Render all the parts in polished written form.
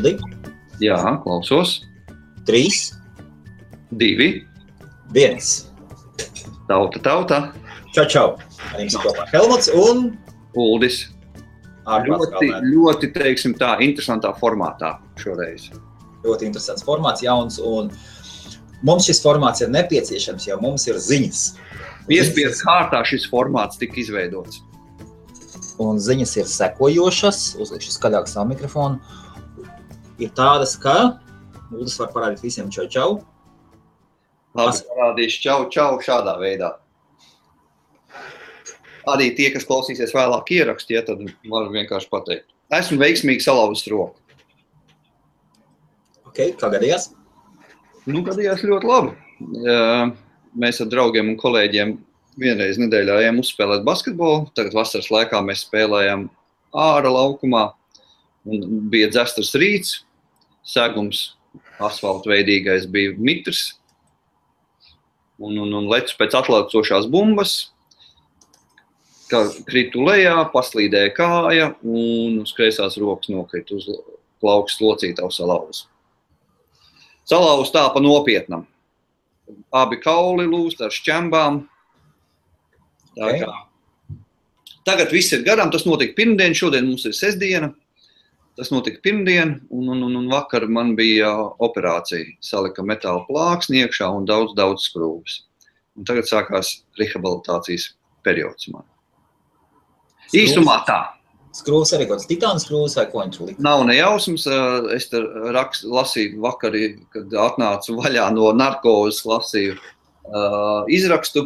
Uldi? Jā, klausos. 3, 2. 1. Tauta. Čau. Ar jums kopā Helmuts un Uldis. Ļoti, teiksim tā, interesantā formātā šoreiz. Ļoti interesants formāts, jauns, un mums šis formāts ir nepieciešams, jo mums ir ziņas. Piespiedu kārtā šis formāts tika izveidots. Un ziņas ir sekojošas, uzlikšu skaļāk savu mikrofonu. Ir tādas, ka Uldis var parādīt visiem čau. Labi, parādīšu čau šādā veidā. Arī tie, kas klausīsies vēlāk ierakstu, tad varu vienkārši pateikt. Esmu veiksmīgi salauzis roku. Ok, kā gadījās? Gadījās ļoti labi. Mēs ar draugiem un kolēģiem vienreiz nedēļā ejam uzspēlēt basketbolu. Tagad vasaras laikā mēs spēlējam ārā laukumā. Un bija dzestars rīts, segums asfaltveidīgais bija mitrs. Un lecu pēc atlaucošās bumbas. Kā kritu lejā, paslīdēja kāja un uz kreisās rokas nokrita uz plaukstas locītavu salauzu. Salauzu tā pa nopietnam. Abi kauli lūst ar šķembām. Okay. Tagad viss ir garām, tas notika pirmdien, šodien mums ir sestdiena. Tas notika pirmdien un vakar man bija operācija. Salika metāla plāksni iekšā un daudz skrūves. Un tagad sākās rehabilitācijas periods man. Īsumā tā. Skrūves arī kaut kāds titāna skrūves vai ko viņi tur lika? Nav nejausmas. Es te lasīju vakarī, kad atnācu vaļā no narkozes, lasīju izrakstu.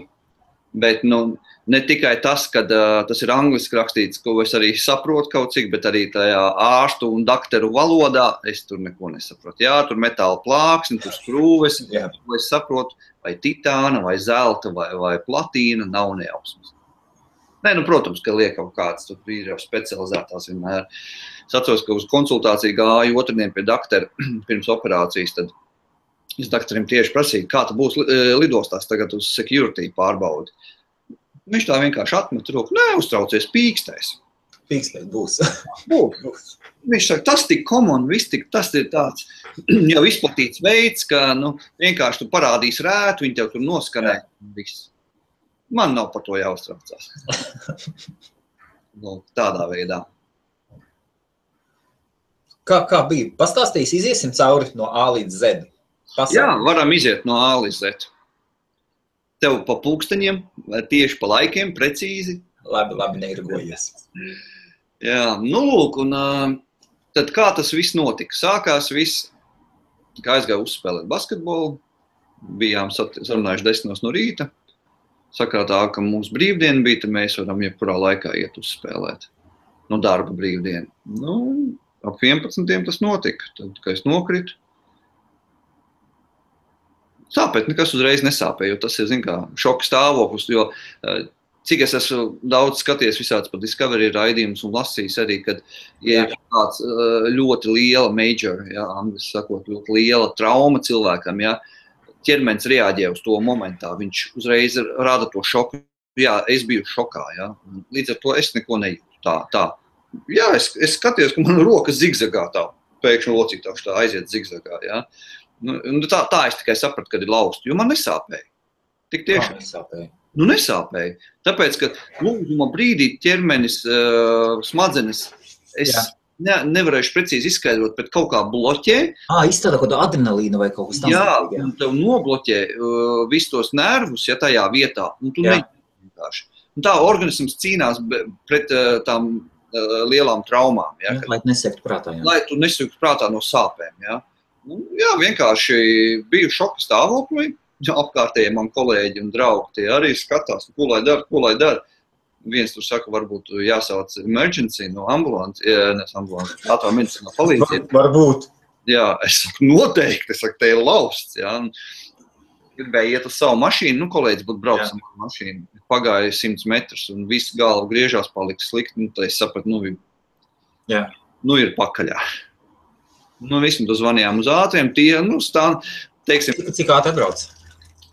Bet ne tikai tas, ka tas ir angliski rakstīts, ko es arī saprotu kaut cik, bet arī tajā ārstu un dakteru valodā es tur neko nesaprotu. Jā, tur metāla plāksni, tur skrūves, ko es saprotu, vai titāna, vai zelta, vai platīna, nav nejausmas. Nē, protams, ka liek kaut kāds, tur ir jau specializētās vienmēr. Es atceros, ka uz konsultāciju gāju otrdien pie daktera pirms operācijas, tad es dakterim tieši prasīju, kā tu būs lidostās tagad uz security pārbaudi. Viņš tā vienkārši atmet roku, neuztraucies, pīkstēs. Pīkstēs būs. Būs. Viņš saka, tas tik common, tas ir tāds jau izplatīts veids, ka vienkārši tu parādīs rētu, viņi tev tur noskanē. Viss. Man nav par to jāuztraucās. Tādā veidā. Kā bija? Pastāstīs, iziesim cauri no A līdz Z. Jā, varam iziet no A līdz Z. Tev pa pulksteņiem, tieši pa laikiem, precīzi. Labi, neirgojies. Jā, lūk, un tad kā tas viss notika? Sākās viss, kā aizgāju uzspēlēt basketbolu, bijām sarunājuši 10 no rīta. Sakrātā, ka mums brīvdiena bija, tad mēs varam jebkurā laikā iet uzspēlēt. Darba brīvdiena. Ap 11. tas notika, tad, kad es nokritu. Sāpēt nekas uzreiz nesāpēja, jo tas ir, šoka stāvoklis, jo cik es esmu daudz skaties visāds par Discovery raidījumus un lasījis arī, kad ir tāds ļoti liela major, angļuiski sakot, ļoti liela trauma cilvēkam, ķermenis reaģē uz to momentā, viņš uzreiz rada to šoku. Jā, es biju šokā, līdz ar to es neko nejūtu tā. Jā, es skatījos, ka man roka zigzagā tā, pēkšņi locītāši tā aiziet zigzagā, Tā es tikai sapratu, kad ir lausta, jo man nesāpēja. Tik tiešām nesāpēja? Nesāpēja, tāpēc, ka lūguma brīdī ķermenis, smadzenes, es nevarēšu precīzi izskaidrot, bet kaut kā bloķē. Izstādā kaut kādu adrenalīnu vai kaut kas tam. Jā, un tev nobloķē visus tos nervus, tajā vietā, un tu vienkārši. Un tā organisms cīnās pret tām lielām traumām. Lai tu nesektu prātā. Lai tu nesektu prātā no sāpēm. Vienkārši biju šoka stāvoklī. Apkārtējie man kolēģi un draugi tie arī skatās, ko lai dara. Viens tur saka, varbūt jāsauc emergency no ambulances, ātrā medicīnā palīdzību. Varbūt. Jā, es saku, noteikti, te ir lausts, Gribēju iet uz savu mašīnu, kolēģis būtu braucis ar mašīnu. Pagāja 100 metrus un viss galva griežās, palika slikti, tad es sapratu, ir pakaļā. Vismaz tu zvanījām uz ātriem, tie, stāv, teiksim. Cik ātri atbrauc?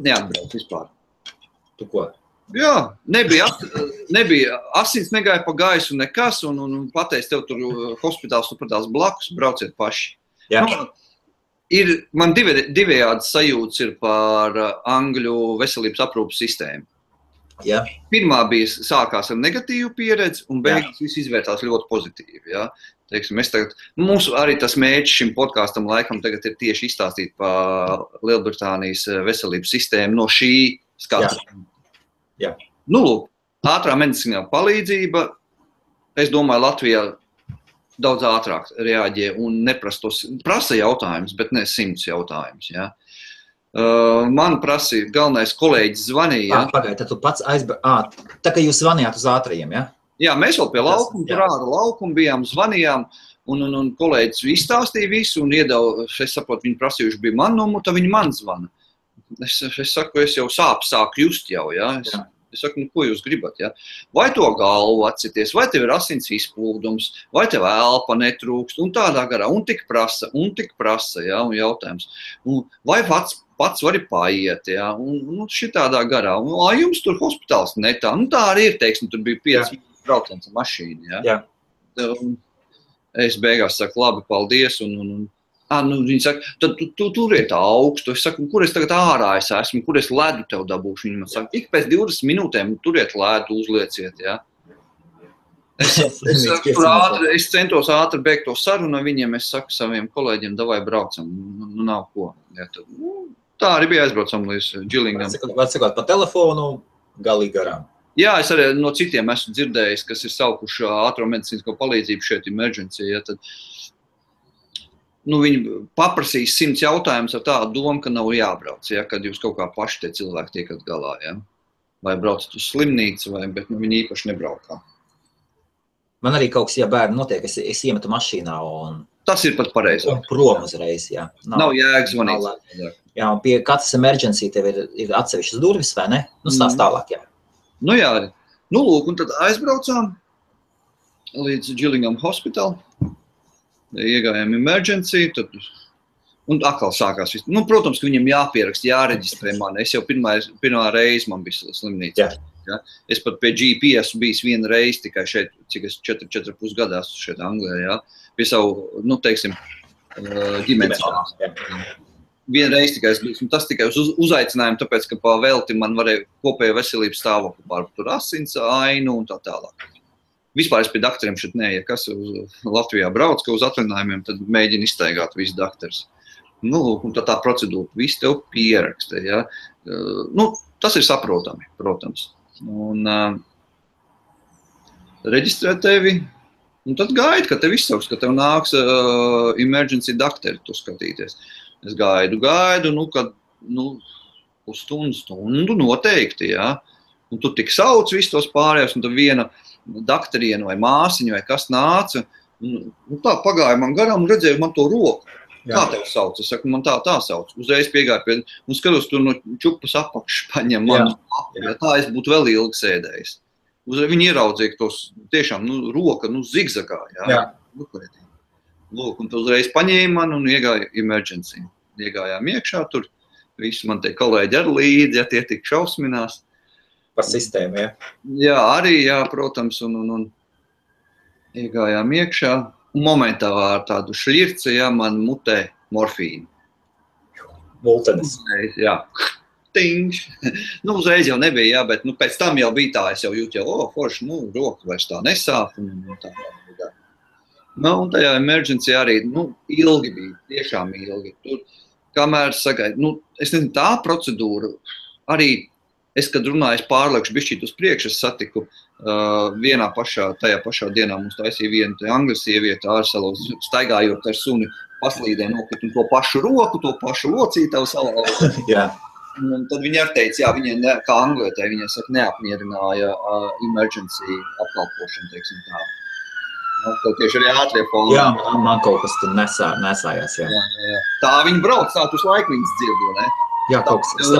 Neatbrauc vispār. Tu ko? Jā, nebija asins negāja pa gaisu nekas, un pateic tev tur hospitāls, tu pratās blakus, brauciet paši. Jā. Man divējādi sajūtas ir par Angļu veselības aprūpas sistēmu. Jā. Pirmā bija sākās ar negatīvu pieredzi, un beigās viss izvērtās ļoti pozitīvi. Ja? Teiksim, mums arī tas mērķis šim podkāstam laikam tagad ir tieši izstāstīt par Lielbritānijas veselības sistēmu no šī skatu. Jā. Nu, lūk, ātrā medicīnā palīdzība, es domāju, Latvijā daudz ātrāk reaģē un prasa jautājumus, bet ne 100 jautājumus. Ja? Man prasīja, galvenais kolēģis zvanīja. Pagaid, tad tu pats tā kā jūs zvanījāt uz ātrajiem, ja? Jā, mēs vēl pie laukuma, tur ārā laukuma bijām, zvanījām, un kolēģis izstāstīja visu, un es saprotu, viņi prasījuši bija man numuru, tad viņi man zvana. Es saku, es jau sāku just jau, ja? Es saku, nu, ko jūs gribat, ja? Vai to galvu atcities, vai tev ir asins izplūdums, vai tev elpa netrūkst, un tādā garā, un tik prasa, ja, un jautājums. Vai pats vari paiet, ja, un šitādā garā, un jums tur hospitāls netā, nu tā arī ir, teiksim, tur bija 5 brauciens ar mašīnu, ja. Es beigās saku, labi, paldies, viņi saka, tad tu turiet augstu, es saku, kur es tagad ārā esmu, kur es ledu tev dabūšu, viņi man saka, ik pēc 20 minūtēm turiet ledu, uzlieciet, ja. Es centos ātri beigt to sarunu viņiem, es saku saviem kolēģiem, davai braucam, nu nav ko, ja, tad, tā arī bija aizbraucam līdz Gillingam. Var sakot, pa telefonu galīgi garām. Jā, es arī no citiem esmu dzirdējis, kas ir saukuši ātro medicīnisko palīdzību šeit emergency. Ja, tad, viņi paprasīs 100 jautājumus ar tādu domu, ka nav jābrauc, ja, kad jūs kaut kā paši tie cilvēki tiekat galā. Ja. Vai braucat uz slimnīcu, bet viņi īpaši nebraukā. Man arī kaut kas, ja bērni notiek, es iemetu mašīnā un... Tas ir pat pareizi. Un prom uzreiz, jā. Nav jēgas zvanīt. Jā, un pie katras emergency tev ir atsevišķas durvis, vai ne? Nu, stāst tālāk, jā. Nu jā, nu lūk, un tad aizbraucām līdz Gillingham Hospital, iegājām emergency, tad, un atkal sākās viss. Nu, protams, ka viņam jāpierakst, jāreģistrē mani. Es jau pirmā reize man bija slimnīca. Ja? Es pat pie GP esmu bijis vienu reizi tikai šeit, cik es 4,5 gadā esmu šeit Anglijā, ja? Pie savu, nu, teiksim, ģimenes. Vienreiz tikai es biju, tas tikai uz uzaicinājumu, tāpēc, ka pa velti man varēja kopējo veselības stāvokli par tur asins ainu un tā tālāk. Vispār es pie daktariem šeit ja kas Latvijā brauc, ka uz atvaļinājumiem, tad mēģina iztaigāt visu daktars. Nu, un tā procedūra, viss tev pieraksta, ja. Nu, tas ir saprotami, protams. Un reģistrē tevi, un tad gaidi, ka tev izsauks, ka tev nāks emergency daktari tu skatīties. Es gaidu, kad, uz stundu noteikti, jā. Un tu tik sauc visus tos pārējos, un tad viena daktariena vai māsiņa vai kas nāca, un tā pagāja man garām un redzēju man to roku. Jā. Kā tev sauc? Es saku, man tā sauc. Uzreiz piegāju pie, un skatos tur no čupas apakšas paņem manu lapu, ja tā es būtu vēl ilgi sēdējis. Uzreiz viņi ieraudzīja, ka tos tiešām, roka, zigzagā, jā. Lūk, un tu uzreiz paņēma man un iegāja emergency. Iegājām iekšā tur, visi man tie kolēģi ar līdzi, ja tie tik šausminās. Par sistēmu, ja? Jā, arī, jā, protams, un iegājām iekšā. Un momentā ar tādu šļirci, ja, man mutē morfīnu. Multenis. Jā. Tingš. Uzreiz jau nebija, jā, bet pēc tam jau bija tā, es jau jūtu, forši, roka vairs tā nesāp un tā. Un tajā emergency arī, ilgi bija, tiešām ilgi. Tur, kamēr sagaidu, es nezinu, tā procedūra, arī es, kad runāju, es pārliekšu bišķīt uz priekšu, es satiku tajā pašā dienā mums taisīja viena angļu sieviete ārsalos, staigājot ar suni, paslīdē nokrit un to pašu roku, to pašu locītavu salauzu. Jā. Un tad viņi arī teica, jā, viņai, kā anglietē, viņai saka, neapmierināja emergency apkalpošanu, teiksim tā. Tad tieši arī ātrie foni. Jā, man kaut kas tur nesājās, jā. Jā. Tā viņi brauc, tā tu laiku viņas dzirdo, ne? Jā, kaut kas.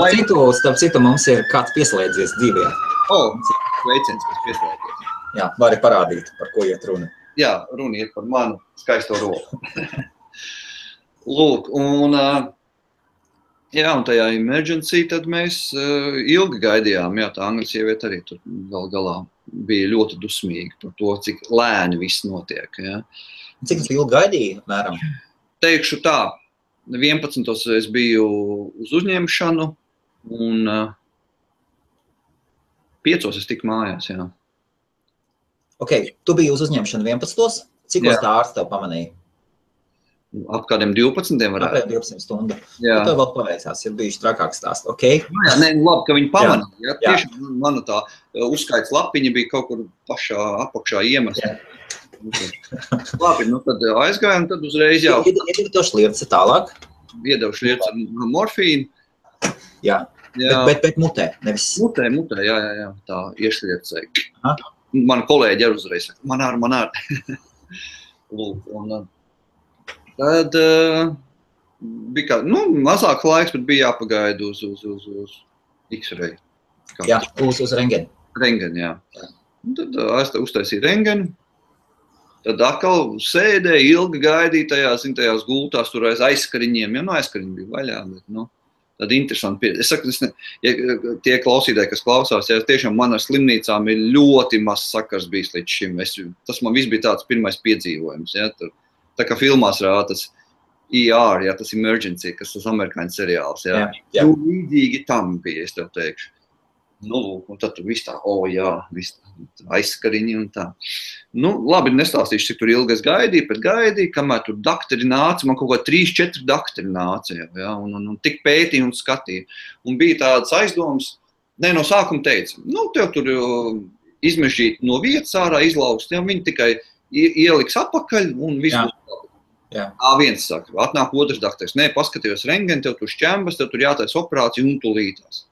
Starp citu mums ir kāds pieslēdzies dzīvē. Sveiciens, kas pieslēdzies. Jā, vari parādīt, par ko iet runa. Jā, runa iet par manu skaisto roku. Lūk, un tajā emergency tad mēs ilgi gaidījām, jā, tā angļu sieviete arī tur galā bija ļoti dusmīgi par to, cik lēni viss notiek. Ja. Cik tas ilgi gaidīja, mēram? teikšu tā, 11. es biju uz uzņemšanu, un 5. es tiku mājās, jā. Ok, tu biji uz uzņemšanu 11. Cikos tā ārsts tev pamanīja? Ap kādiem 12 varētu. Apmēram 12 stundu. Jā. Tev vēl paveicās, ir bijuši trakāks stāsts, ok? Jā, nē, labi, ka viņi pamanīja. Jā. Tiešām mana tā uzskaits lapiņa bija kaut kur pašā apakšā iemesta. Labi, nu tad aizgājām, tad uzreiz jau. Iedevi to šlierci tālāk? Iedevu šlierci ar morfīnu. Jā, bet mutē, nevis... Mutē, jā, tā iešliercēja. Man kolēģi ar uzreiz saka, man ar. Lūk, un tad bija kā, mazāk laiks, bet bija jāpagaida uz X-ray. Jā, uz rengeni. Rengeni, jā. Un tad uztaisīja rengeni. Tad atkal sēdēja, ilgi gaidīja tajās gultās, tur aiz aizskariņiem. Ja, aizskariņi bija vaļā, bet, tad interesanti. Es saku, tie klausītāji, kas klausās, ja tiešām man ar slimnīcām ir ļoti maz sakars bijis līdz šim. Tas man viss bija tāds pirmais piedzīvojums. Ja, tur, tā kā filmās rāda tas ER, ja, tas Emergency, kas tas amerikāņu seriāls. Ja. Jā. Līdzīgi tam bija, es tev teikšu. Un tad tur viss tā, viss aizskariņi un tā. Labi, nestāstīšu, cik tur ilgi es gaidīju, kamēr tur dakteri nāca, man kaut kā 3-4 dakteri nāca, ja, un tik pētīja un skatīja. Un bija tādas aizdomas, no sākuma teica, tev tur izmežģīt no vietas ārā, izlaust, ja, viņi tikai ieliks apakaļ un viss būs labi. Viens saka, atnāk otrs dakteris, paskatījos rengeni, tev tur šķembas, tev tur jātais operācija un tu lītās.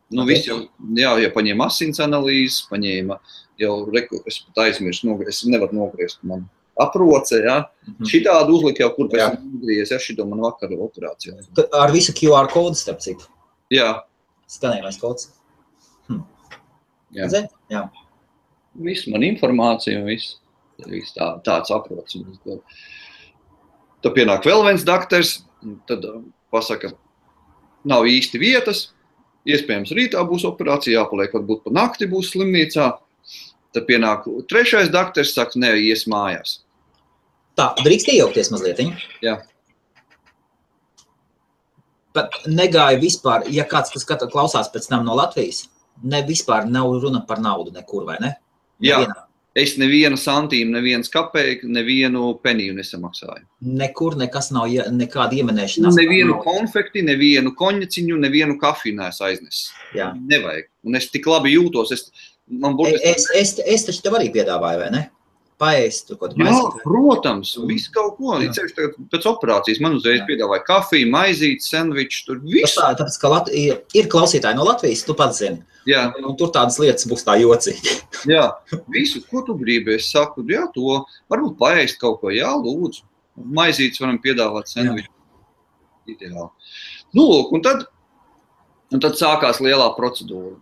Viss jau paņēma asins analīzes, paņēma jau, es pat aizmirstu, es nevaru nogriezt, man aproce, ja. Šitādu uzlika jau, kur pēc nogriez, ja, šito man vakar operācijā. Ar visu QR kodu, starp citu? Jā. Skanējumais kods? Jā. Jā. Viss, man informācija un viss tāds aprots. Tad pienāk vēl viens dakters, tad pasaka, nav īsti vietas, iespējams rītā būs operācija, jāpaliek, varbūt pa nakti būs slimnīcā. Tad pienāk trešais dakters, saka, ies mājās. Tā, drīkst iejaukties mazlietiņ? Jā. Bet negāja vispār, ja kāds, kas klausās pēc tam no Latvijas, vispār nav runa par naudu nekur, vai ne? Jā. Es nevienu santīmu, neviens kapeiku, nevienu peniju nesamaksāju. Nekur nekas nav, nekāda iemenēšanās. Nevienu konfekti, nevienu koņaciņu, nevienu kafiju neesmu aiznesis. Jā. Nevajag. Un es tik labi jūtos. Es taču tev arī piedāvāju, vai ne? Paēst, tur kaut maizīt. Jā, protams, visu kaut ko. Pēc operācijas man uzreiz piedāvāja kafiju, maizīt, sendviču, tur visu. Tāpēc, ka ir klausītāji no Latvijas, tu pats zini. Jā. Un tur tādas lietas būs tā jocīgi. Jā, visu, ko tu gribi, es saku, jā, to varbūt paēst kaut ko, jā, lūdzu. Maizītes varam piedāvāt sendviču. Ideāli. Lūk, un tad sākās lielā procedūra.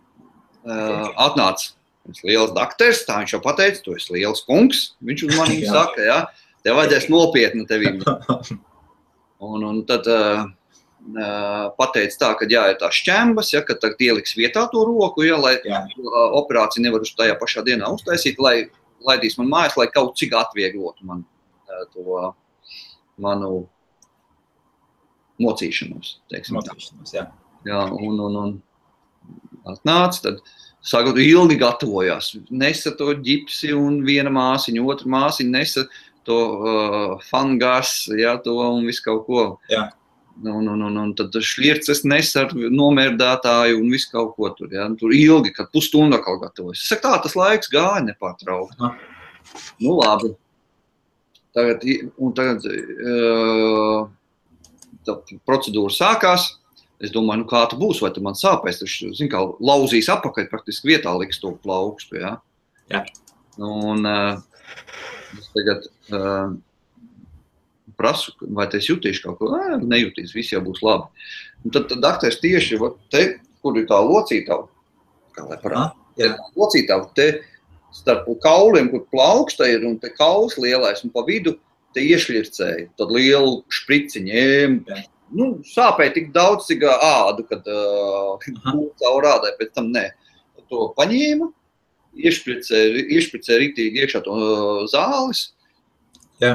Atnāca liels dakters, tā viņš jau pateica, tu esi liels kungs. Viņš uz maniem saka, jā, tev vajadzēs nopietni tevim. Un tad pateica tā, ka ir tā šķembas, ja, ka tagad ieliks vietā to roku, ja, lai operāciju nevar uz tajā pašā dienā uztaisīt, lai laidīs man mājās, lai kaut cik atvieglotu man to manu mocīšanos, teiksim. Mocīšanos, jā. Jā, un atnāca, tad sākot ilgi gatavojās. Nesa to ģipsi un viena māsiņa, otra māsiņa nesa to fangas, ja, to un visu kaut ko. Jā. Un tad šlierces nes ar nomērdētāju un visu kaut ko tur. Ja. Tur ilgi, kad pusstundā kaut gatavojas. Es saku, tā tas laiks gāja nepārtraukt. Labi. Tagad procedūra sākās. Es domāju, kā tu būs, vai tu man sāpēs. Tu, zini, kā lauzīs apakaļ, praktiski vietā liks to plaukstu. Ja. Jā. Un es tagad prasu, vai es jutīšu kaut ko, nejutīs, viss jau būs labi. Un tad dakteris tieši te, kur ir tā locītava, kā lai parāda, locītava te starp kauliem, kur plauksta ir, un te kauls lielais, un pa vidu te iešļircēja, tad lielu špriciņu, sāpēja tik daudz, cik ādu, kad caur ādai, pēc tam nē. To paņēma, iešpricēja ritīgi iekšā to zāles, Jā.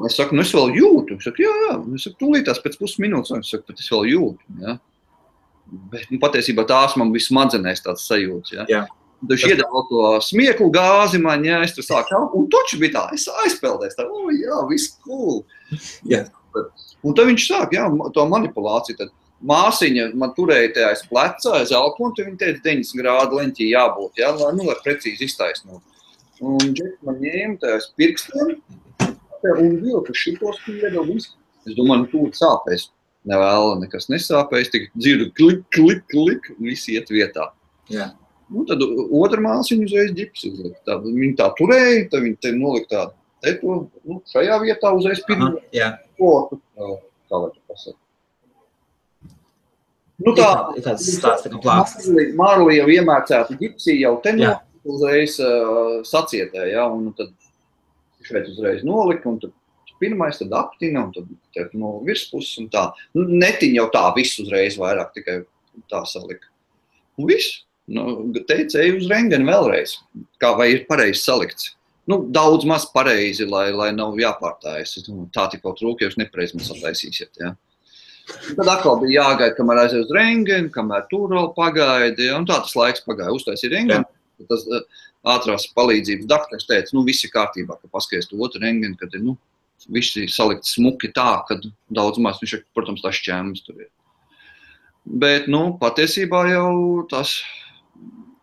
Es saku, es vēl jūtu. Es saku, jā. Es saku, tūlītās pēc pusminūtes. Es saku, bet es vēl jūtu. Ja? Bet patiesībā tās man bija smadzenēs tāds sajūts. Ja? Jā. Viņš iedeva to smieklu gāzi man, ja es tur sāku. Un toči bija tā, es aizpeldēs. Tā, jā, viss cool. Jā. Un tad viņš sāk, jā, to manipulāciju. Tad māsiņa man turēja te aiz pleca, aiz alkonu, tad viņa teica 90 grādu leņķī jābūt, ja? Lai precīzi iztaisnot. Un Džeks man ņēma te aiz pirkstiem. Un vilku šitos pieda visu. Es domāju, tūlīt sāpēs. Nevēla, nekas nesāpēs, tik dzirdu klik, klik, klik, visi iet vietā. Jā. Un tad otra māsiņa uzreiz ģips uzlika. Viņa tā turēja, tad viņa te nolika tā, šajā vietā uzreiz pirmo. Jā. Kā vai tu pasaka? Nu tā, kāds stāsts, tā kā plākstas. Marli jau iemērcētu ģipsī, jau te uzreiz sacietē, ja, un tad šeit uzreiz nolika, un tad pirmais, tad aptina, un tad no virspuses, un tā. Nu, netiņ jau tā viss uzreiz vairāk, tikai tā salika. Un viss. Teica, ej uz rengeni vēlreiz, kā vai ir pareizi salikts. Nu, daudz maz pareizi, lai nav jāpārtājas. Tā tikko trūk, ja jūs nepareizi man sataisīsiet, ja. Tad atkal bija jāgaida, kamēr aiziet uz rengeni, kamēr tur vēl pagaida, ja, un tā tas laiks pagāja. Uztaisīja rengeni, tas ātrās palīdzības daktars teica, viss ir kārtībā, ka paskaties to otru rengeni, kad ir, viss ir salikts smuki tā, kad daudz maz, viņš, protams, tās šķēmas tur ir. Bet, patiesībā jau tas,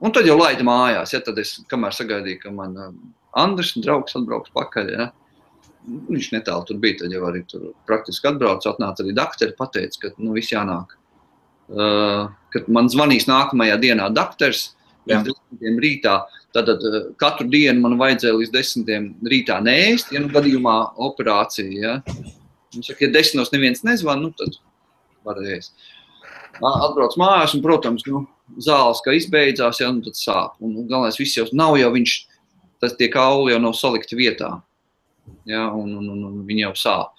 un tad jau laida mājās, ja, tad es, kamēr sagaidīju, ka man Andris, draugs, atbrauks pakaļ, ja, viņš netālu tur bija, tad jau arī tur praktiski atbrauc, atnāca arī dakteri, pateica, ka, viss jānāk, kad man zvanīs nākamajā dienā dakters, līdz 10 rītā, tad katru dienu man vajadzēja līdz 10 rītā neēst, ja gadījumā operācija, ja. Viņš saka, ja 10 neviens nezvan, tad var ēst. Atbrauc mājās un, protams, zāles, kā izbeidzās, ja, tad sāp. Un galvenais viss jau nav jau viņš, tie kauli jau nav salikti vietā, ja, un viņi jau sāp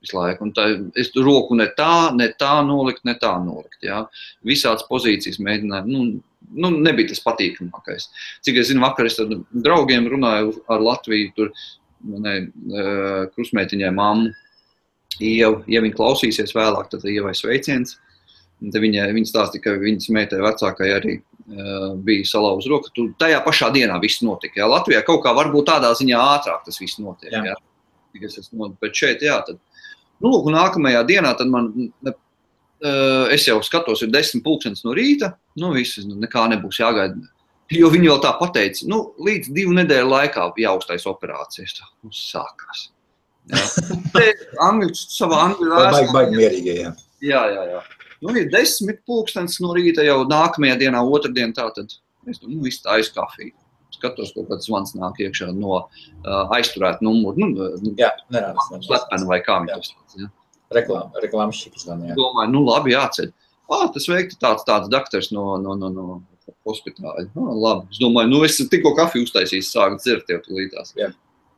visu laiku. Un tā, es roku ne tā nolikt, ja. Visādas pozīcijas mēģināju, nebija tas patīkamākais. Cik es zinu, vakar es ar draugiem runāju ar Latviju, tur krustmeitiņai mammu, ja viņa klausīsies vēlāk, tad Ievai sveiciens. Tad viņa stāstīja, ka viņas meitai vecākai arī bija salauz roka. Tajā pašā dienā viss notika. Ja? Latvijā kaut kā varbūt tādā ziņā ātrāk tas viss notiek. Ja? Bet šeit, jā, tad. Un nākamajā dienā tad man, es jau skatos, ir 10:00 no rīta, viss, nekā nebūs jāgaida. Jo viņi vēl tā pateica, līdz 2 nedēļu laikā jāuztais operācijas. Sākās. Savā angļu vēstā. Baigi mierīgi, jā. Jā. Ir 10:00 no rīta jau nākamajā dienā, otrdien tā, tad es viss tā aiz kafiju. Skatos, kaut kāds zvans nāk iekšā no aizturēt numuru. Jā, nerāds. Slepeni vai kā viņi tos tāds, ja? Reklāmas šikas zvani, jā. Domāju, labi, jāceļ. Tas veikti tāds daktars no hospitāļa. Labi. Es domāju, es tikko kafiju uztaisīs, sāku dzert jau tulītās. Jā.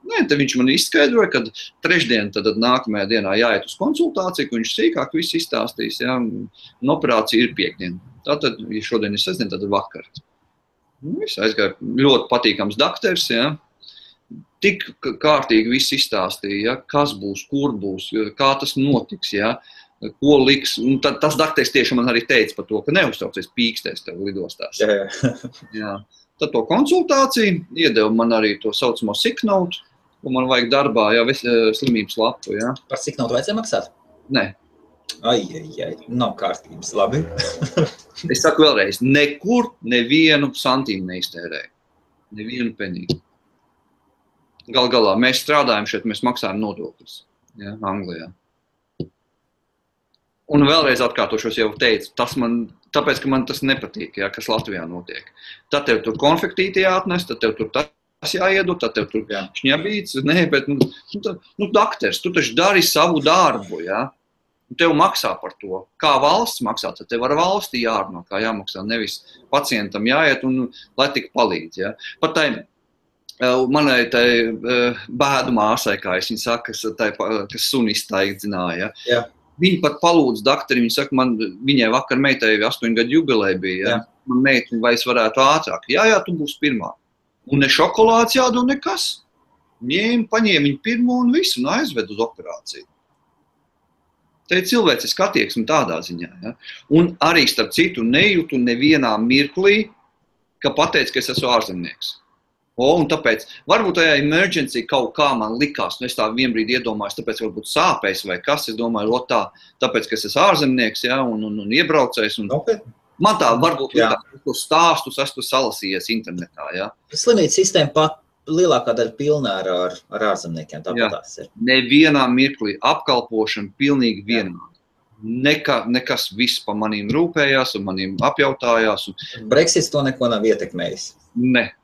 Nē, tad viņš man izskaidroja, ka trešdien tad nākamajā dienā jāiet uz konsultāciju, ka viņš sīkāk visu izstāstīs, ja, un operācija ir piekdien. Tātad, ja šodien ir sestdien, tad ir vakar. Viss aizgāja ļoti patīkams dakters, ja. Tik kārtīgi viss izstāstīja, ja, kas būs, kur būs, kā tas notiks, ja, ko liks. Un tas dakters tieši man arī teica par to, ka neuztraucies pīkstēs tev lidostās. Jā. Tad to konsultāciju iedeva man arī to saucamo sick note, ko man vajag darbā, ja, slimības lapu. Ja. Par sick note vajadzēja maksāt? Nē. Ai, nav kārtības, labi. Es saku vēlreiz, nekur nevienu santīmu neiztērēju. Nevienu penīgu. Galā, mēs strādājam šeit, mēs maksājam nodokļus, ja, Anglijā. Un vēlreiz atkārtošos jau teicu, tāpēc, ka man tas nepatīk, ja, kas Latvijā notiek. Tad tev tur konfektīti jāatnes, tad tev tur tas jāiedod, tad tev tur šņabīts, bet, dakters, tu taču dari savu darbu, ja. Tev maksā par to. Kā valsts maksā, tad tev ar valsti jārunā, kā jāmaksā, nevis pacientam jāiet un lai tik palīdz. Ja. Pat manai bēdu māsai, kā es viņu saku, kas suni iztaigdzināja. Ja. Viņa pat palūdz daktari, viņa saka, viņai vakar meitai 8 gadu jubilē bija. Ja. Man meita, vai es varētu ātrāk. Jā, tu būsi pirmā. Un ne šokolāds jādod nekas. paņēma viņu pirmo un visu, un aizved uz operāciju. Te ir cilvēciski attieksme tādā ziņā. Ja? Un arī starp citu nejūtu nevienā mirklī, ka pateic, ka es esmu ārzemnieks. Un tāpēc, varbūt tajā emergency kaut kā man likās, es tā vienbrīd iedomājos, tāpēc varbūt sāpēs vai kas, es domāju, tāpēc, ka es esmu ārzemnieks, ja, un iebraucējs. Okay. Man tā varbūt likās, ka stāstus esmu salasījies internetā. Ja. Slimnīca sistēma pat lielākā daļa pilnā ar ārzemniekiem, tāpat tās ir. Nevienā mirklī apkalpošana pilnīgi vienādi. Nekas viss pa manīm rūpējās un manīm apjautājās. Brexits to neko nav ietekmējis? Ne.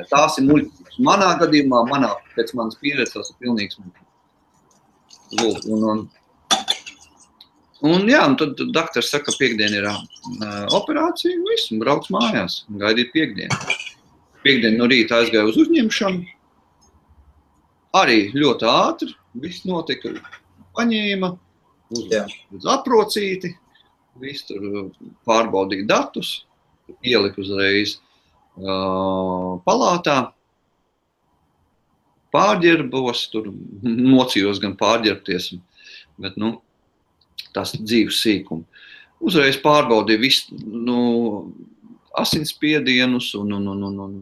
Tās ir muļķības. Manā gadījumā, pēc manas pieredzes, tās ir pilnīgs muļķības. Un tad daktars saka, ka piekdien ir operācija, un viss, un brauc mājās, un gaidīt piekdienu. Piekdien no rīta aizgāju uz uzņemšanu. Arī ļoti ātri, viss notika, paņēma, uz aprocīti, viss tur pārbaudīja datus, ielika uzreiz palātā, pārģerbos, tur mocījos gan pārģerbties, bet, tas dzīves sīkumi. Uzreiz pārbaudīja visu, asinsspiedienus un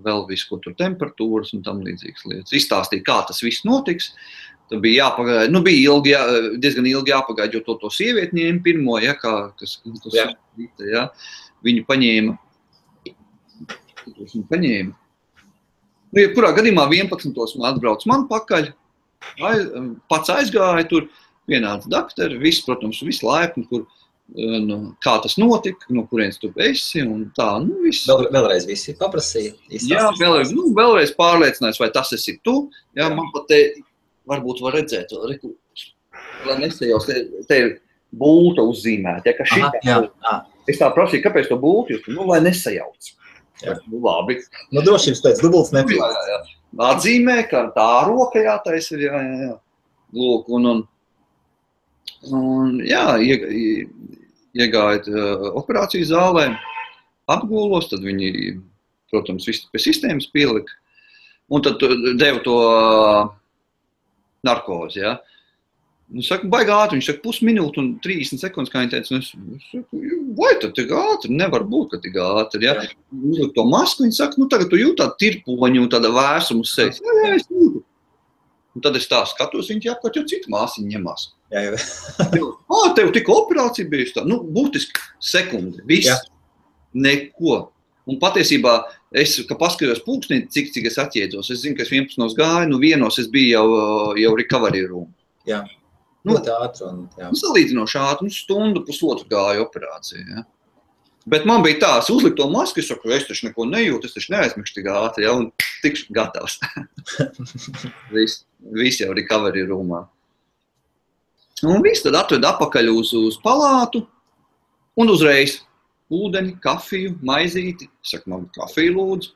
vēl visu, ko tur temperatūras un tam līdzīgas lietas. Izstāstīja, kā tas viss notiks. Tad bija jāpagaida, bija diezgan ilgi jāpagaida, jo to sievieti ņēma pirmo, ja, kas ja, viņu paņēma. Jebkurā gadījumā 11. man atbrauc man pakaļ, pats aizgāja tur, vienāds daktari, viss, protams, viss laipni, kur, kā tas notika, no kurienes tu esi un tā, viss. Vēlreiz visi paprasīja. Jā, vēlreiz pārliecinājis, vai tas esi tu. Jā, man pat te varbūt var redzēt, lai nesajaus, te ir bulta uzzīmēta, ja, ka šitā. Es tā prasīju, kāpēc to bultu jūs, lai nesajauc. Jā. Labi. Drošības pēc dubults nepilnās. Jā. Atzīmē, ka tā roka jātais ir, jā. Lūk, un iegājot operāciju zālē, apgūlos, tad viņi, protams, visu pie sistēmas pielika, un tad deva to narkozi, jā. Saka, baigā ātri, viņš saka, pusminūte un 30 sekundes, kā viņi teica, es saku, vai tad tik ātri, nevar būt, ka tik ātri, jā. Uzliek to masku, viņi saka, tagad tu jūt tādu tirpoņu un tāda vērsumu uz sejas. Jā, es jūtu. Un tad es tā skatos, viņi apkārt jau citu māsiņu ņemās. Jā. Tev tikko operācija bijusi tā, būtiski sekundi, viss, neko. Un patiesībā, ka paskatījos pulkstī, cik es atjēdzos, es zinu, ka es 11 gāju, vienos es biju jau recovery room. Jā. Ļoti ātri. Salīdzinoši ātri, stundu, pusotru gāju operāciju. Ja. Bet man bija tā, es uzliku to masku, es saku, es taču neko nejūtu, es taču neaizmikšu tik ātri, ja, un tikšu gatavs. Viss jau recovery roomā. Un viss tad atved apakaļ uz palātu, un uzreiz ūdeni, kafiju, maizīti. Es saku, man kafiju lūdzu.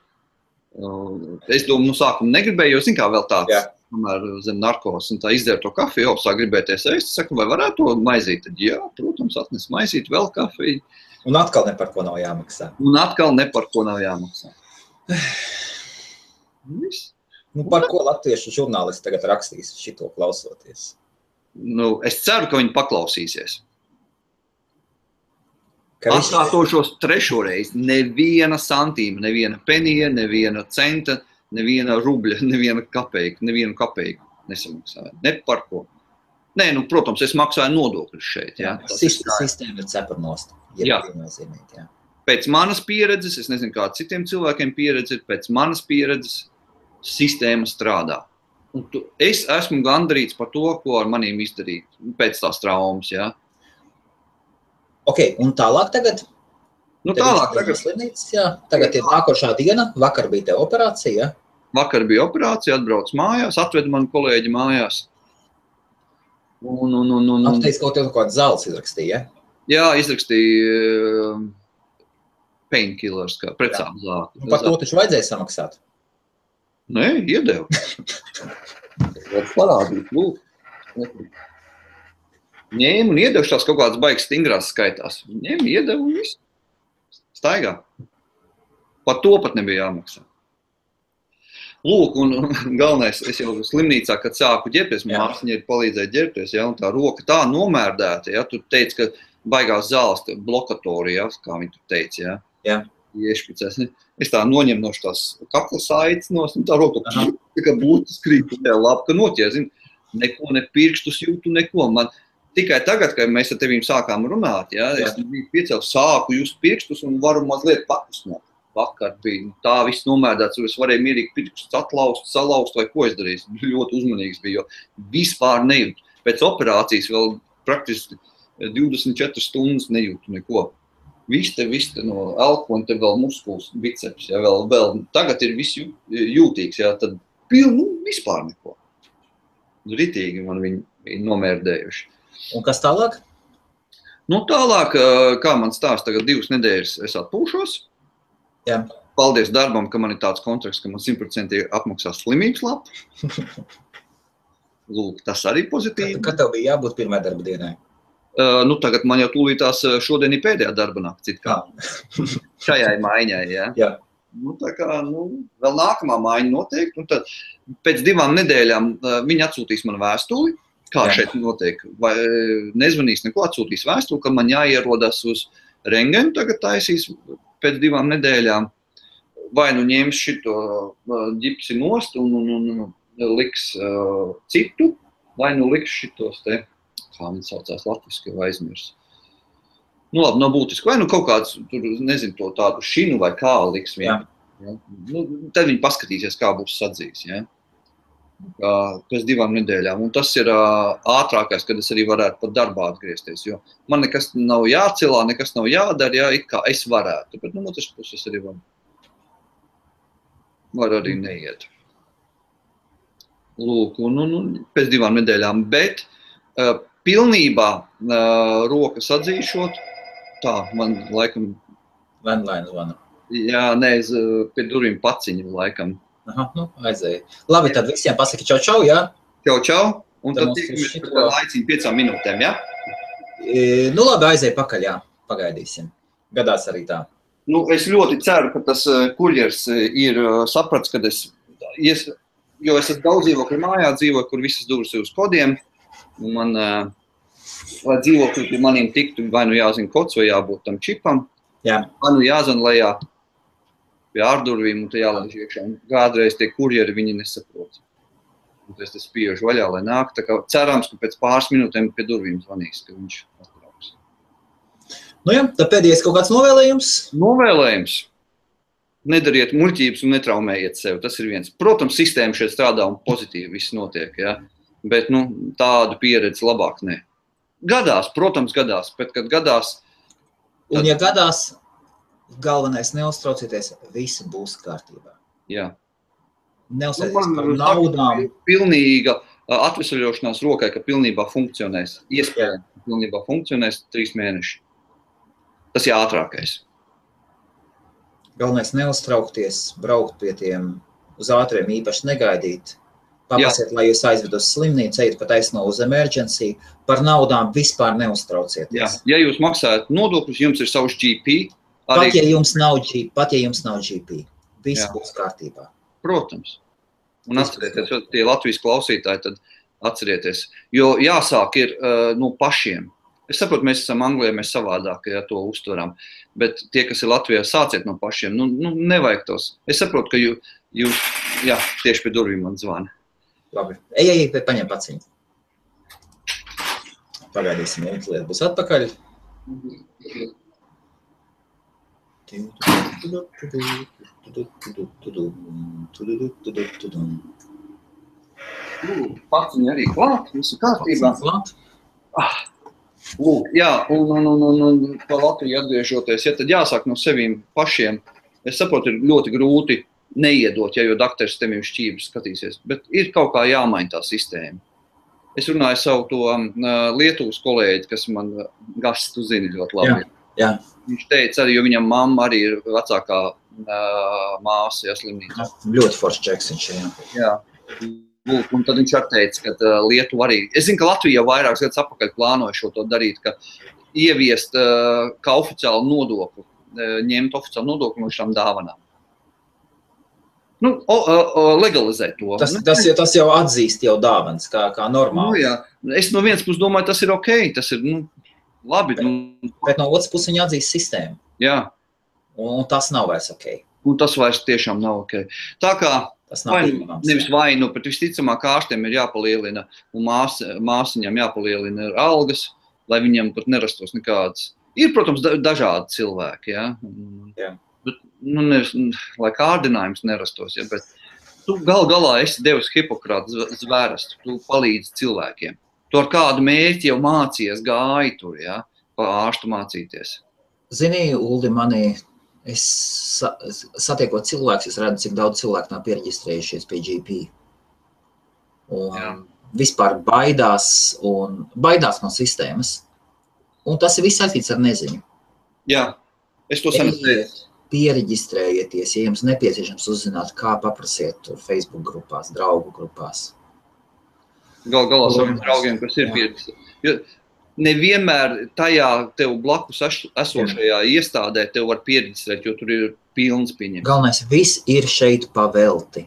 Es domāju, sākumu negribēju, jo zin kā vēl tāds. Jā. Tomēr zem narkos, un tā izdēra to kafiju, sāk gribēties ēst, saku, vai varētu to maizīt? Tad, jā, protams, atnes maizīt, vēl kafiju. Un atkal ne par ko nav jāmaksā. Viss. Par ko latviešu žurnālisti tagad rakstīs šito klausoties? Es ceru, ka viņi paklausīsies. Atkārtošos trešo reizi, neviena santīma, neviena penija, neviena centa, neviena rubļa, nevienu kapeiku nesamaksāju. Ne par ko. Nē, protams, es maksāju nodokļus šeit. Jā. Sistēma ir cepurnost. Jā. Pēc manas pieredzes, es nezinu, kā citiem cilvēkiem pieredze ir, pēc manas pieredzes sistēma strādā. Un es esmu gandarīts par to, ko ar manīm izdarīt pēc tās traumas. Jā. Ok, un tālāk tagad? Tagad ir nākošā diena, vakar bija te operācija, ja? Vakar bija operācija, atbrauc mājās, atved mani kolēģi mājās. Teici, ka tev kāds zāles izrakstīja, ja? Jā, izrakstīja painkillers, kā precāpu zāli. Par to taču vajadzēja samaksāt? Nē, iedevu. Parādīt, lūk. Ņēmu un iedevu tās kaut kādas baigas stingrās skaitās. Ņēmu, iedevu un visu. Staigā. Par to pat nebija jāmaksā. Lūk, un galvenais, es jau slimnīcā, kad sāku ģērbties, māsiņa ir palīdzēja ģērbties, ja, un tā roka tā nomērdēta, ja, tu teici, ka baigās zāles blokatori, ja, kā viņi tur teica, ja. Jā. Iešpicēs. Es tā noņem no tās kakla saites nos, un tā roka tā kā būtu skrīt, tā labi, ka noķēr, zin, neko, ne pirkstus jūtu, neko. Man tikai tagad, kad mēs ar tevīm sākām runāt, ja, es biju piecēl, sāku just pirkstus un varu mazliet pakusnāt. Vakar bija tā viss nomērdēts, es varēju mierīgi pirkstus atlaust, salaust vai ko es darīju. Ļoti uzmanīgs bija, jo vispār nejūtu. Pēc operācijas vēl praktiski 24 stundas nejūtu neko. Viss te no elko un te vēl muskuls, biceps, ja, vēl tagad ir viss jūtīgs, ja, tad vispār neko. Ritīgi man viņi nomērdējuši. Un kas tālāk? Nu, tālāk, kā man stāst, tagad 2 nedēļas es atpūšos. Jā. Paldies darbam, ka man ir tāds kontrakts, ka man 100% apmaksās slimības lapu. Lūk, tas arī pozitīvi. Kad tev bija jābūt pirmajai darba dienai? Nu, tagad man jau tūlītās šodien ir pēdējā darba nakts, it kā. Šajai maiņai, ja. Jā. Nu, tā kā, vēl nākamā maiņa noteikti, un tad pēc 2 nedēļām viņi atsūtīs man vēstuli, kā šeit notiek, vai nezvanīs neko, atsūtīs vēstuli, ka man jāierodas uz rengenu, tagad taisīs pēc 2 nedēļām, vai nu ņems šito ģipsi nost un liks citu, vai nu liks šitos te, kā viņi saucās latviski, jau aizmirs. Nu labi, nav būtiski, vai nu kaut kāds, tur, nezinu, to tādu šinu vai kā liks vien. Ja? Nu, tad viņi paskatīsies, kā būs sadzīs, ja? Pēc 2 nedēļām. Un tas ir ātrākais, kad es arī varētu pat darbā atgriezties, jo man nekas nav jācelā, nekas nav jādara, ja, it kā es varētu, bet no otras puses arī var arī neiet. Lūk, un pēc 2 nedēļām, bet pilnībā rokas atzīšot, tā, man laikam... Landline zvana. Jā, nē, pie durvīm paciņu laikam. Aha, nu, aizēja. Labi, tad visiem pasaki čau, jā? Čau, un tad tiekamies par laiciņu 5 minūtēm, jā? Nu, labi, aizēja pakaļ, jā, pagaidīsim. Gadās arī tā. Nu, es ļoti ceru, ka tas kurjers ir saprats, kad jo es daudz dzīvokļu mājā dzīvoju, kur visas durvis ir uz kodiem, un man, lai dzīvokļi pie maniem tiktu, vai nu jāzina kods, vai jābūt tam čipam, vai nu jāzina lejā pie ārdurvīm, un te jālaiž iekšā. Un kādreiz tie kurjeri viņi nesaprot. Un es te spiežu vaļā, lai nāk. Tā kā cerams, ka pēc pāris minūtēm pie durvīm zvanīs, ka viņš atbrauks. Nu jā, tad pēdējais kaut kāds novēlējums? Novēlējums. Nedariet muļķības un netraumējiet sevi. Tas ir viens. Protams, sistēma šeit strādā un pozitīvi viss notiek, ja? Bet tādu pieredzi labāk ne. Gadās, protams, gadās, bet kad gadās... Un ja gadās... Galvenais neuztraucieties, visi būs kārtībā. Jā. Neuztraucieties par naudām. Pilnīga atvesaļošanās rokai, ka pilnībā funkcionēs. Iespējams, ka pilnībā funkcionēs 3 mēneši. Tas ir ātrākais. Galvenais neuztraukties, braukt pie tiem uz ātriem, īpaši negaidīt. Papasiet, lai jūs aizved uz slimnīcu, ejiet pat aizno uz emergency. Par naudām vispār neuztraucieties. Jā. Ja jūs maksājat nodokļus, jums ir savs GP. Pat ja jums nav GP, viss būs kārtībā. Protams. Un atcerieties, tie Latvijas klausītāji, tad atcerieties. Jo jāsāk ir no pašiem. Es saprotu, mēs esam Anglijā, mēs savādāk, ja to uztveram. Bet tie, kas ir Latvijā, sāciet no pašiem. Nevajag tos. Es saprotu, ka jūs tieši pie durvīm man zvana. Labi. Ej, paņem paciņu. Pagaidīsim, lieta būs atpakaļ. Paciņi arī klāt, visu kārtībā. Lūk, jā, un pa Latviju atgriežoties, ja tad jāsāk no sevīm pašiem. Es saprotu, ir ļoti grūti neiedot, jo dakteris tevīm šķības skatīsies, bet ir kaut kā jāmaina tā sistēma. Es runāju savu to Lietuvas kolēģi, kas man Gasts, tu zini ļoti labi. Jā. Viņš teica arī, jo viņam mamma arī ir vecākā māsa, slimnīcā. Ļoti foršs čeks viņš, jā. Lūk, un tad viņš arī teica, ka Lietuva arī... Es zinu, ka Latvija jau vairākas gadus apakaļ plānoja šo to darīt, ka ieviest kā oficiālu nodokli, ņemt oficiālu nodokli no šām dāvanām. Legalizēt to. Tas jau atzīst jau dāvanas, kā normāli. Jā. Es no vienas puses domāju, tas ir ok, tas ir, labi. Bet no otras puses viņi atzīst sistēmu. Jā. Un tas nav vairs ok. Un tas vairs tiešām nav ok. Tā kā, nevis vainu, bet visticamāk ārstiem ir jāpalielina, un māsiņām jāpalielina algas, lai viņiem pat nerastos nekādas. Ir, protams, dažādi cilvēki, jā. Bet, nevis, lai kārdinājums nerastos, ja, bet tu galā esi devis Hipokrata zvērestu, tu palīdzi cilvēkiem. Tu ar kādu mērķi jau mācījies, gāji tur, ja, pa ārstu mācīties. Zini, Uldi, es satiekot cilvēkus, es redzu, cik daudz cilvēku nav piereģistrējušies pie GP. Un vispār baidās no sistēmas. Un tas ir viss saistīts ar neziņu. Jā, es to saprotu. Piereģistrējieties, ja jums nepieciešams uzzināt, kā paprasiet tur Facebook grupās, draugu grupās. Galā saviem draugiem, kas ir piereģistrēti. Jo nevienmēr tajā tev blakus esošajā iestādē tev var piereģistrēt, jo tur ir pilns pieņems. Galvenais, viss ir šeit pavelti.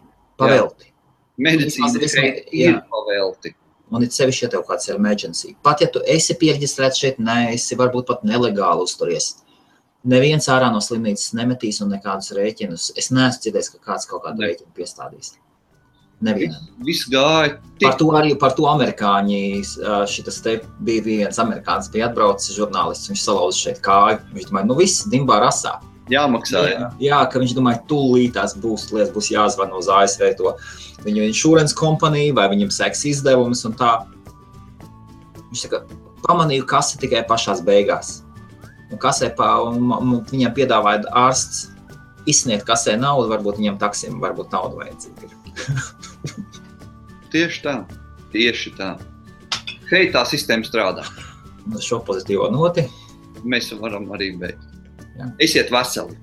Medicīna šeit ir pavelti. Un it sevišķi, ja tev kāds ir emergency. Pat ja tu esi piereģistrēts šeit, esi varbūt pat nelegāli uzturies. Neviens ārā no slimnīcas nemetīs un nekādus rēķinus. Es neesmu dzirdējis, ka kāds kaut kādu rēķinu piestādīs. Nevienam. Viss gāja. Par to amerikāņi, šitas te bija viens amerikānis, bija atbraucis žurnālists, viņš salauza šeit kāju. Viņš domāja, viss dimbā rasā. Jāmaksā, Jā, ka viņš domāja, tūlītās būs jāzvana uz ASV to viņu insurance kompaniju, vai viņam seks izdevumus un tā. Viņš saka, pamanīju kasi tikai pašās beigās. Un kasē viņam piedāvāja ārsts izsniegt kasē naudu, varbūt viņam taksim, varbūt naudu vajadzīga ir. Tieši tā. Hei, tā sistēma strādā. Un šo pozitīvo noti. Mēs varam arī beigt. Esiet veseli.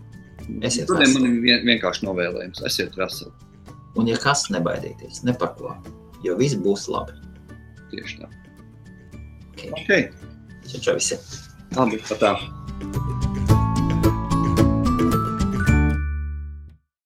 Man ir vienkārši novēlējums. Esiet veseli. Un ja kas, nebaidieties, ne par ko, jo viss būs labi. Tieši tā. Ok. Čau visi. Labi, tā.